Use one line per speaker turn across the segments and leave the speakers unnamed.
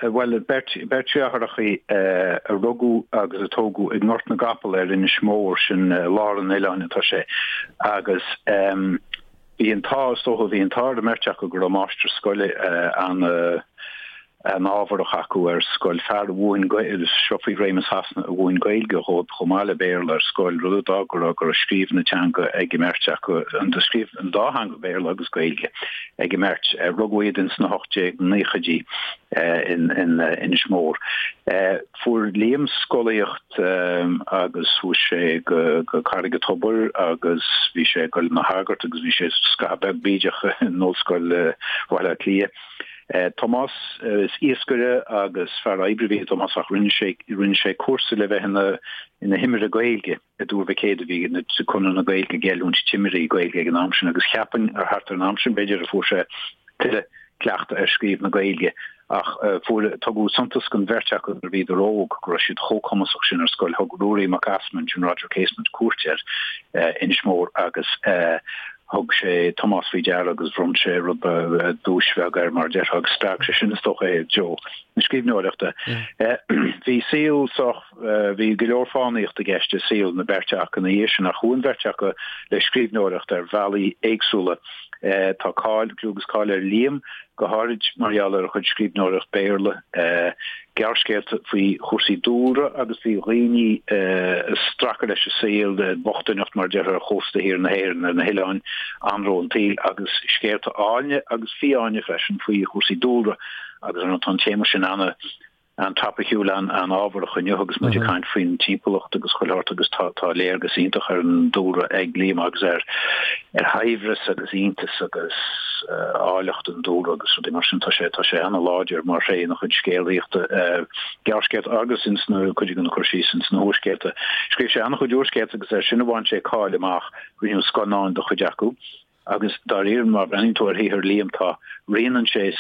Bhuel, beirt deartháireacha a rugadh agus a tógadh i nGort na gCapall ar Inis Mór, sin lár an oileáin atá sé, agus bhí an t-ádh, is dócha, bhí an t-ádh ar an mbeirt acu go raibh máistir scoile an an-ámharach acu ar scoil, fear a mhúin, seo faoi réimeas Shasana, a mhúin Gaeilge dhóibh chomh maith le Béarla ar scoil, rud a d'fhág go raibh go raibh scríobh na teanga ag an mbeirt acu, scríobh an dá theanga, Béarla agus Gaeilge, ag an mbeirt. Rugadh iad ins na 1890idí in Inis Mór. Fuair Liam scolaíocht agus chuaigh sé go Carraig an Tobair agus bhí sé ag dul ina shagart agus bhí sé scaitheamh beag bídeach in Ollscoil Bhaile Átha Cliath. Tomás, is iascaire agus fear oibre a bhí i dTomás ach rinne sé rinne sé cúrsa le bheith ina ina thimire Gaeilge i dTuar Mhic Éadaigh bhí na Conradh na Gaeilge ag oiliúint timirí Gaeilge ag an am sin agus cheapfainn ar thart ar an am sin b'fhéidir a fuair sé tuilleadh cleachtadh ar scríobh na Gaeilge ach fuair tugadh suntas don bheirt acu nuair a bhíodar óg go raibh siad chomh cumasach sin ar scoil. Thug Ruairí Mac Easmainn, sin Roger Casement, cuairt ar Inis Mór agus Thug sé Tomás faoi deara agus bhronn sé rud ba duais bheag air, mar a déarfá, agus spreag sé sin, is dócha, é i dtreo na scríbhneoireachta. Bhí saol sách, bhí go leor fánaíochta i gceist i saol na beirte acu ina dhiaidh sin, ach chuaigh an bheirt acu le scríbhneoireacht ar bhealaí éagsúla. Tá cáil, clú agus cáil ar Liam, go háirid mar gheall ar a chuid scríbhneoireacht Béarla, gearrscéalta faoi chúrsaí dúlra agus faoi dhaoine ag stracadh leis an saol, bochtaineacht mar a déarfá ar chósta thiar na hÉireann, ar na hoileáin, anró an tsaoil agus scéalta áilne agus fiáine freisin faoi chúrsaí dúlra agus ar ndóigh tá an téama sin ana an-topaiciúil, an-ábharach inniu agus muid ag caint faoin timpeallacht agus chuile shórt agus tá tá léargas iontach ar an dúlra ag Liam agus ar ar shaibhreas agus iontas agus áilleacht an dúlra agus rudaí mar sin. Tá sé tá sé an-láidir mar thréith ina chuid scéalaíochta, gearrscéalta agus ins na cuid de na cur síos ins na húrscéalta. Scríobh sé an-chuid úrscéalta agus ar sin a bhain sé cáil amach, rinneadh scannáin de chuid acu. Agus dáiríre, má bhreathnaíonn tú ar shaothar Liam, tá, rianann sé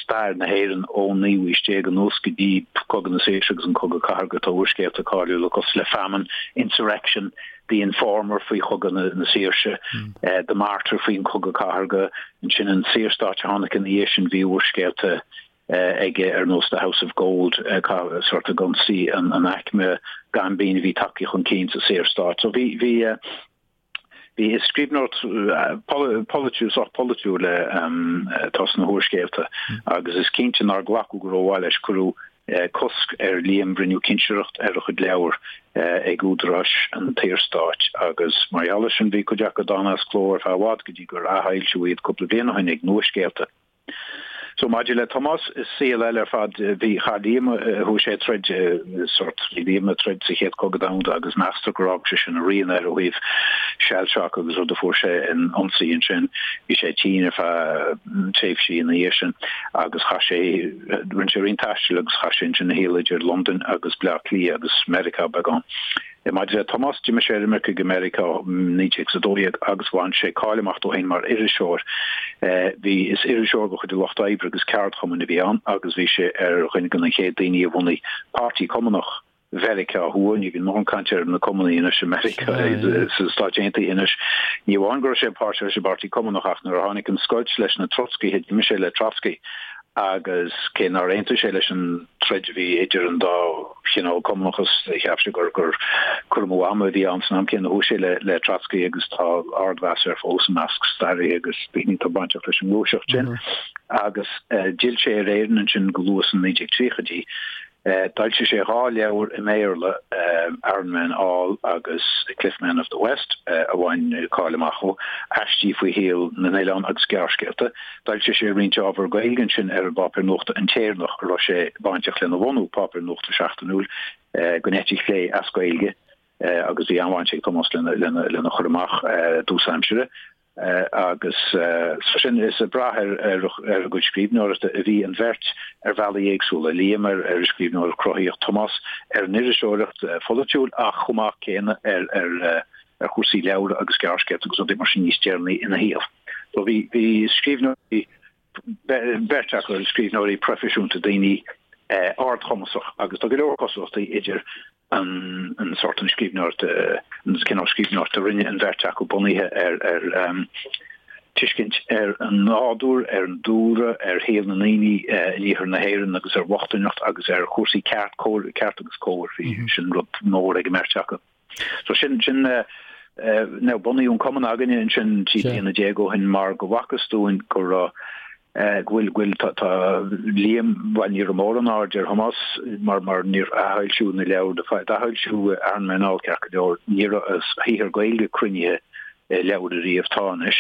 stair na hÉireann ón naoú haois déag anuas go dtí Cogadh na Saoirse agus an Cogadh Cathartha. Tá úrscéalta cáiliúla cosúil le Famine, Insurrection, The Informer faoi Chogadh na Saoirse, The Martyr faoin Chogadh Cathartha, ansin an Saorstát a tháinig ina dhiaidh sin, bhí úrscéalta aige ar nós The House of Gold, sórt ag ionsaí an aicme gaimbín a bhí tagtha chun cinn sa Saorstát. So bhí, bhí. Bhí is scríbhneoireacht polaitiúil, sách polaitiúil atá sna húrscéalta agus is cinnte nár glacadh go rómhaith leis. Cuireadh cosc ar Liam, rinneadh cinsireacht ar a chuid leabhar ag údaráis an tSaorstáit agus mar gheall air sin bhí cuid acu dána as cló ar feadh i bhfad go dtí gur athfhoilsíodh iad cúpla bliain ó shin ag Nuascéalta. So maidir le Tomás, is saol eile ar fad. Bhí, chaith Liam, chuaigh sé ag troid, sórt, bhí Liam ag troid sa Chéad Chogadh Domhanda agus meastar gur fhág sé sin a rian air ó thaobh shell shock agus rud a fuair sé in ionsaí ansin. Bhí sé tinn ar feadh tréimhsí ina dhiaidh sin agus chaith sé, rinne sé roinnt taistil agus chaith sé ansin a shaol idir Londain agus Bleá Cliath agus Meiriceá beagán. Maidir le Tomás, d'imigh sé ar imirce go Meiriceá i 1912 agus bhain sé cáil amach dó féin mar iriseoir. Bhí, is iriseoir de chuid an Lucht Oibre agus ceardchumainn a bhí ann agus bhí sé ar dhuine de na chéad daoine a bhunaigh Páirtí Cumannach Mheiriceá Thuaidh. Ní bhíonn mórán cainte ar na Cumannaigh anois i Meiriceá, sna Stáit Aontaithe anois. Ní amháin go raibh sé páirteach leis an bPáirtí Cumannach ach nuair a tháinig an scoilt leis na Trotscaithe d'imigh sé le Trotsky agus cé nár aontaigh sé leis an troid a bhí idir an dá chineál cumannachas, cheap sé gur gur cur amú ama a bhí ann san am céanna. Chuaigh sé le le Trotsky agus tá ardmheas air fós i measc staraithe agus daoine atá bainteach leis an ngluaiseacht sin. Agus d'fhill sé ar Éirinn ansin go luath sna 1930idí. D'fhoilsigh sé 2 leabhar i mBéarla, Aran Men All agus Cliff Men of the West, a bhain cáil amach dó, aistí faoi shaol na n-oileán agus gearrscéalta. D'fhoilsigh sé roinnt ábhar Gaeilge ansin ar an bpáipéar nuachta An tÉireannach, a raibh sé bainteach lena bhunú, páipéar nuachta seachtainiúil den eite chlé as Gaeilge, agus bhí an-bhaint ag Tomás lena chur amach i dtús aimsire. Agus so sin, is ag brath ar a gcuid scríbhneoireachta a bhí an bheirt ar bhealaí éagsúla, Liam ar an scríbhneoireacht chruthaíoch, Tomás ar an iriseoireacht pholaitiúil ach chomh maith céanna ar chúrsaí leabhar agus gearrscéalta agus rudaí mar sin níos deireanaí ina shaol. So bhí bhí scríbhneoirí, beirt acu, scríbhneoirí proifisiúnta, daoine ardchumasach agus tá go leor cosúlachtaí idir an an sórt an scríbhneoireacht, an cineál scríbhneoireachta a rinne an bheirt acu bunaithe ar ar. tuiscint ar an nádúr, ar an dúlra, ar shaol na ndaoine in iarthar na hÉireann agus ar bhochtaineacht agus ar chúrsaí ceart, cóir, ceart agus cóir. Bhí sin rud mór ag an mbeirt acu. So sin, sin, now bunaíodh an cumann againne ansin 13 bliana ó shin mar go bhfacthas dúinn go raibh, go bhfuil, go bhfuil, tá, tá Liam, bhuel ní raibh mórán aird ar Thomás mar, mar níor athfhoilsíodh na leabhair, d'athfhoilsíodh Iron Man All ceart go leor, ní raibh a shaothar Gaeilge cruinnithe i leabhar ariamh, tá anois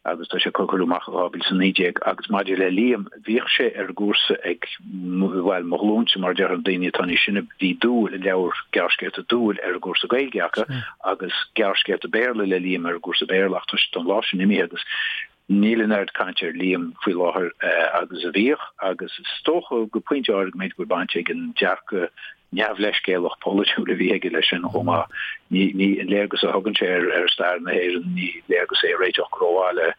agus tá sé cuireadh amach i 2019. Agus maidir le Liam, bhíodh sé ar an gcúrsa ag, bhuel, mo ghlúinse mar a déarfá, na daoine atá níos sine, bhí Dúil, an leabhar gearrscéalta Dúil ar an gcúrsa Gaeilge acu agus gearrscéalta Béarla le Liam ar an gcúrsa Béarla ach tá an lá sin imithe agus níl an oiread cainte ar Liam faoi láthair agus a bhíodh agus is dócha go pointe áirithe go mb'fhéidir go bhfuil baint ag an dearcadh neamhleithscéalach polaitiúil a bhí aige leis sin chomh maith. Ní, ní, an léargas a thugann sé ar, ar stair na hÉireann, ní léargas é a réiteodh go rómhaith le,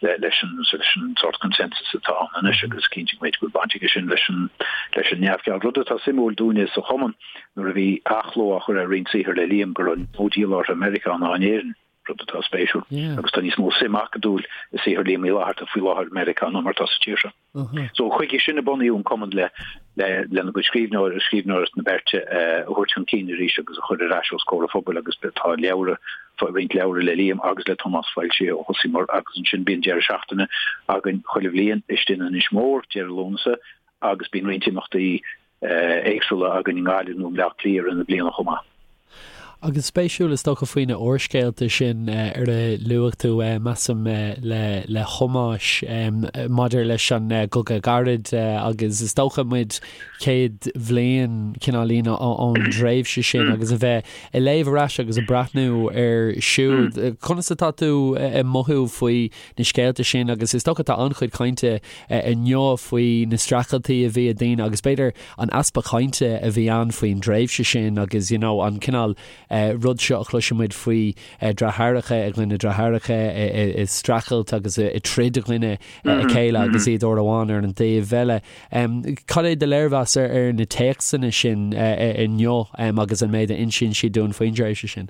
le, leis an, leis an sórt consensus atá ann anois agus cinnte go mb'fhéidir go bhfuil baint aige sin leis an, leis an neamhcheal. Rud atá suimiúil dúinne sa chumann nuair a bhí athchló á chur ar roinnt saothar le Liam go raibh níos mó díol orthu i Meiriceá ná in Éirinn. rud atá spéisiúil. Agus tá níos mó suim acadúil i saothar Liam Uí Fhlatharta faoi láthair i Meiriceá ná mar atá sa tír seo. So chuige sin a bunaíodh an cumann le lena gcuid scríbhneoir, scríbhneoireacht na beirte a thabhairt chun cinn arís agus a chur ar ais os comhair an phobail agus tá leabhra, roinnt leabhra le Liam agus le Tomás foilsithe ó thosaíomar agus ansin bíonn deireadh seachtaine againn chuile bhliain istigh in Inis Mór, deireadh Lúnasa agus bíonn roinnt imeachtaí éagsúla
againn i nGaillimh nó i mBleá Cliath i rith na bliana chomh maith. Agus spéisiúil is dócha faoi na úrscéalta sin ar a luaigh tú, measaim, le le Tomás maidir leis an gCogadh Gairid agus is dócha muid 100 bhliain cineáilín ón dtréimhse sin agus a bheith ag léamh ar ais agus ag breathnú air siúd. Conas atá tú ag mothú faoi na scéalta sin agus is dócha tá an-chuid cainte inniu faoi na streachailtí a bhí ag daoine agus b'fhéidir an easpa cainte a bhí ann faoin dtréimhse sin agus you know an cineál rud seo a chloiseann muid faoi deartháireacha i gcoinne deartháireacha ag streachailt agus ag troid i gcoinne a chéile agus iad uair amháin ar an dtaobh eile. Cad é do léirmheas ar na téacsanna sin inniu agus an méid a insíonn siad dúinn faoin dtréimhse sin?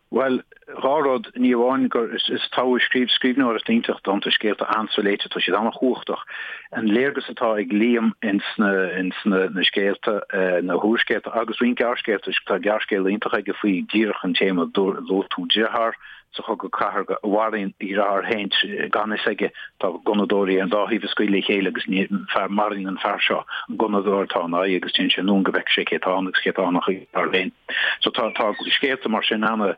Bhuel, dhá rud, ní amháin gur is is togha scríobh scríbhneoireacht iontach dánta scéalta an-soléite, tá siad an-chumhachtach. An léargas atá ag Liam ins na ins na na scéalta, na húrscéalta agus roinnt gearrscéalta, tá gearrscéal iontach aige faoi díreach an téama luaigh tú deartháir sa Chogadh Cathartha a mharaíonn a dheartháir féin gan fhios aige, tá gunnadóirí ar an dá thaobh ag scaoileadh le chéile agus ní fear maraíonn an fear seo an gunnadóir atá ina aghaidh agus téann sé anonn go bhfeicfidh sé cé atá ann agus cé atá ann ach a dheartháir féin. So tá tá scéalta mar sin ana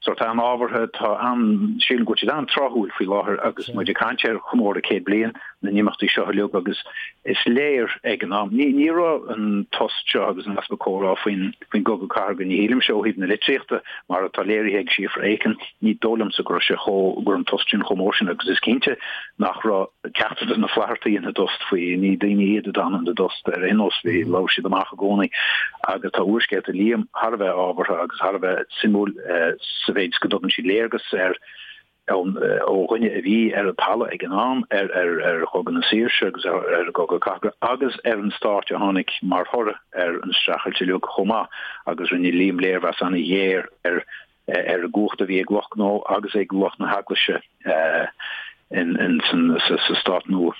sort an-ábhartha, tá an sílim go bhfuil siad an-tráthúil faoi láthair agus muid ag caint ar chomóradh 100 bliain na n-imeachtaí seo uilig agus is léir ag an am ní ní raibh an tost seo agus an easpa comhrá faoin faoin gcogadh cathartha ní shílimse ó thaobh na litríochta mar atá léirithe ag Síofra Aiken ní dóigh liomsa go raibh sé chomh go raibh an tost sin chomh mór sin agus is cinnte nach raibh ceachtar de na Flathartaigh ina dtost faoi, ní daoine iad a d'fhan ina dtost ar aon nós, bhí, labhair siad amach i gcónaí agus tá úrscéalta Liam thar a bheith ábhartha agus thar a bheith suimiúil sa mhéid is go dtugann siad léargas ar ó dhuine a bhí ar an talamh ag an am ar ar ar Chogadh na Saoirse agus ar ar an gCogadh Cathartha agus ar an stát a tháinig mar thoradh ar an streachailt uilig chomh maith agus rinne Liam léirmheas an-ghéar ar ar an gcumhacht a bhí ag lucht gnó agus ag lucht na heaglaise sa stát nua.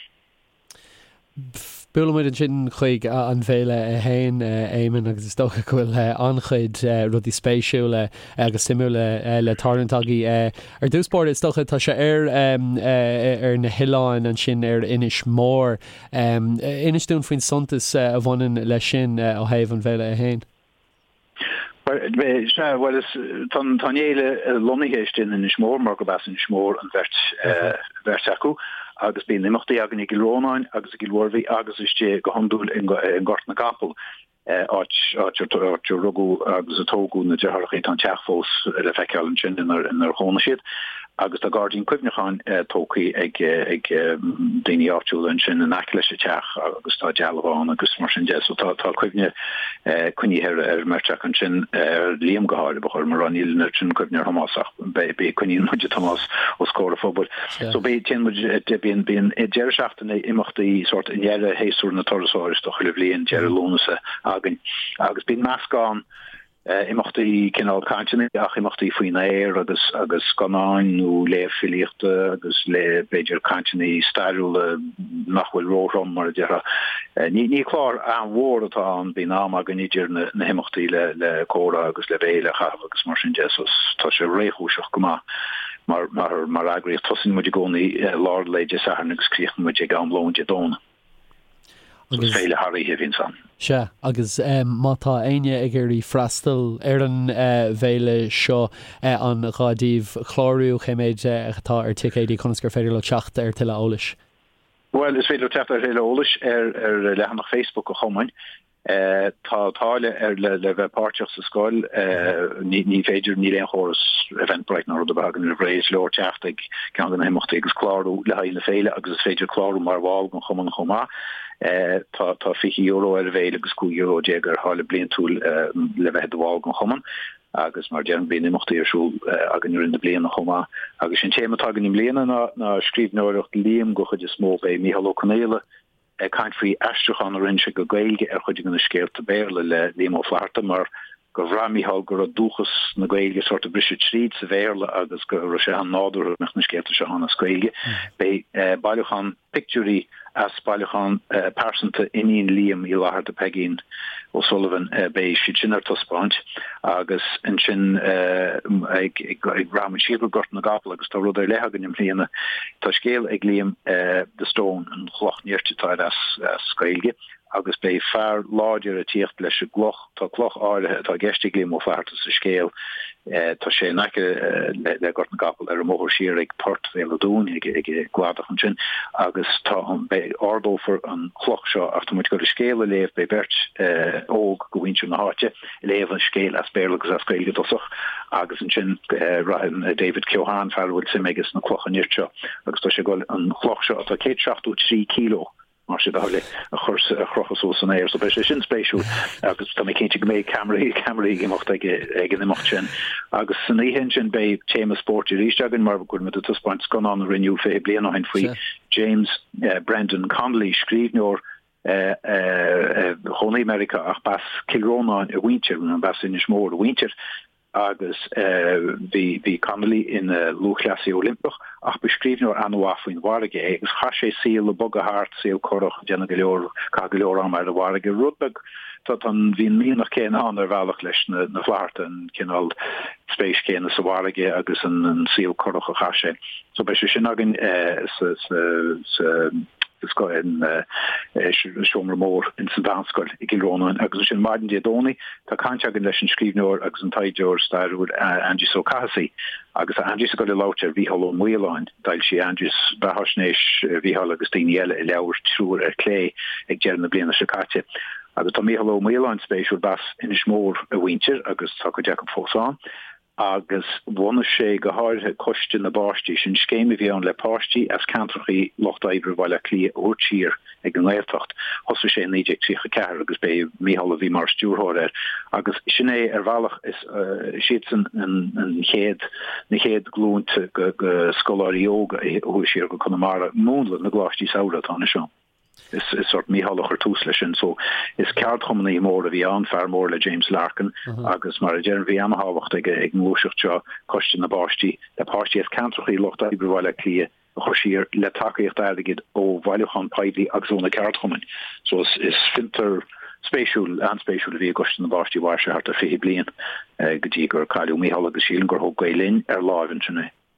Buailfidh muid ansin chuig an bhféile í féin, Éamonn, agus is dócha go bhfuil an-chuid rudaí spéisiúla agus suimiúla le tarlúint agaibh. Ar dtús báire, is dócha, tá sé ar ar na hoileáin ansin ar Inis Mór. Inis dúinn faoin suntas a bhaineann leis sin ó thaobh an bhféile í féin.
Sea, bhuel, is, tá an fhéile lonnaithe istigh in Inis Mór mar gurb as Inis Mór an bheirt, bheirt acu agus bíonn imeachtaí againn i gCill Rónáin agus i gCill Mhuirbhigh agus istigh go hiondúil i nGort na gCapall, áit, áit áit a rugadh agus a tógadh na deartháireacha, tá an teach fós le feiceáil ansin inar, inar chónaigh siad. Agus tá gairdín cuimhneacháin tógtha ag ag daoine áitiúla ansin in aice leis an teach agus tá dealbh ann agus mar sin de. So tá tá cuimhne coinnithe ar ar an mbeirt acu ansin, ar Liam go háirithe, ba chóir dom a rá, níl an oiread sin cuimhne ar Thomás ach beidh beidh coinníonn muid Tomás os comhair an phobail. So beidh téann muid bíonn bíonn deireadh seachtaine imeachtaí sórt i ndeireadh shéasúr na turasóireachta chuile bhliain, deireadh Lúnasa againn agus bíonn meascán. Imeachtaí cineál cainteanna ach imeachtaí faoin aer agus agus scannáin nó léamh filíochta agus le b'fhéidir cainteanna stairiúla nach bhfuil róthrom mar a déarfá. Ní ní clár an-mhór atá ann, bíonn am againn idir na na himeachtaí le le comhrá agus le béile a chaitheamh agus mar sin de so tá sé réchúiseach go maith mar mar mar eagraíocht. Tosaíonn muid i gcónaí lár lae Dé Sathairn agus críochnaíonn muid ag am lóin Dé Domhnaigh.
Agus
féile thar oíche a bhíonns ann.
Sea, agus má tá éinne ag iarraidh freastal ar an bhféile seo, an gá daoibh clárú, cé méid atá ar ticéidí, conas gur féidir leo teacht ar tuilleadh eolais?
Bhuel, is féidir leo teacht ar thuilleadh eolais ar leathanach Facebook an Chumainn. Tá táille ar le le bheith páirteach sa scoil. Ní féidir, níl aon chóras Eventbrite ná rud ar bith againn roimh ré. Is leor teacht ag ceann de na himeachtaí agus clárú le haghaidh na féile agus is féidir clárú mar bhall den chumann chomh maith. Tá tá €20 ar an bhféile agus €15 ar tháille bliantúil le bheith i do bhall den chumann agus mar a deirim bíonn imeachtaí ar siúl againn i rith na bliana chomh maith. Agus an téama atá againn i mbliana ná ná scríbhneoireacht Liam den chuid is mó. Beidh Mícheál Ó Conghaile ag caint faoi aistriúchán a rinne sé go Gaeilge ar chuid de na scéalta Béarla le Liam Ó Flaithearta mar gur bhraith Mícheál go raibh dúchas na Gaeilge sórt ag briseadh tríd sa Bhéarla agus go raibh sé an-nádúrtha go mbeadh na scéalta seo ann as Gaeilge. Beidh bailiúchán pictiúirí as bailiúchán pearsanta iníon Liam Uí Fhlaithearta, Peigín O'Sullivan, beidh siad sin ar taispeáint agus ansin ag rachaidh muid siar go Gort na gCapall agus tá rud ar leith againn i mbliana. Tá scéal ag Liam The Stone, an chloch nirt atá air as Gaeilge, agus beidh fear láidir ag tíocht leis an gcloch. Tá cloch áirithe atá i gceist ag Liam Ó Flaithearta sa scéal. Tá sé in aice le Gort na gCapall ar an mbóthar siar ag Port Bhéal an Dúin, ag an gcladach ansin, agus tá an, beidh, ardófar an chloch seo ach tá muid ag dul an scéal a léamh, beidh beirt óg de mhuintir na háite ag léamh an scéil as Béarla agus as Gaeilge i dtosach agus ansin rachaidh David Keohane, fear a bhfuil suim aige sna clocha nirt seo, agus tá sé ag dul an chloch seo atá 173 kilo, mar sin de, a chur a chrochadh suas san aer. So beidh sé sin spéisiúil agus tá mé cinnte go mbeidh ceamaraí ceamaraí ag imeacht ag ag an imeacht sin. Agus san oíche ansin beidh téama spóirt arís againn mar go bhfuil muid ag taispeáint scannán a rinneadh 20 bliain ó shin faoi James Brendan Connolly, scríbhneoir a chónaigh i Meiriceá ach b'as Cill Rónáin a mhuintir, nó b'as Inis Mór a mhuintir. agus bhí bhí Connolly ina lúthchleasaí Oilimpeach ach ba scríbhneoir an-mhaith faoin bhfarraige é agus chaith sé saol ag bogadh thart, saol curach, ag déanamh go leor, caitheamh go leor ama ar an bhfarraige, rud beag tá tá an bhí an mianach céanna ann ar bhealach leis na na Flaithearta, an cineál spéis chéanna sa bhfarraige agus an an saol curach a chaith sé. So beidh sé sin againn sa sa sa seomra mór in sa Mheánscoil i gCill Rónáin agus ansin maidin Dé Domhnaigh tá caint againn leis an scríbhneoir agus an taighdeoir stairiúil Aindrias Ó Cathasaigh agus tá Aindrias ag dul ag labhairt ar Mhícheál Ó Maoláin. D'fhoilsigh Aindrias beathaisnéis Mhícheáil agus daoine eile i leabhar Triúr ar Clé ag deireadh na bliana seo caite. Agus tá Mícheál Ó Maoláin spéisiúil, b'as Inis Mór a mhuintir agus tá cuid acu fós ann. agus bhunaigh sé go háirithe Coiste na bPáistí, sin scéim a bhí ann le páistí as ceantrachaí lucht oibre Bhaile Átha Cliath a thabhairt siar ag an nGaeltacht. Thosaigh sé i 1934 agus b'é Mícheál a bhí mar stiúrthóir air agus sin é ar bhealach is siadsan an chéad na chéad ghlúnta de scoláirí óga a chuaigh siar go Conamara, múnla na gcoláistí samhraidh atá anois ann. Is sórt Mícheál a chuir tús leis sin. So is ceardchumannaí mór a bhí ann, fear mór le James Larkin agus mar a deirim bhí ana-thábhacht ag an ngluaiseacht seo, Coiste na bPáistí, le páistí as ceantrachaí lucht oibre Bhaile Átha Cliath a chur siar le tacaíocht airgid ó bhailiúchán poiblí agus ó na ceardchumainn. So is is fiontar spéisiúil, an-spéisiúil a bhí i gCoiste na bPáistí. Mhair sé thart ar 20 bliain go dtí gur cailleadh Mícheál agus sílim gur thóg Gael Linn ar láimh ansin é.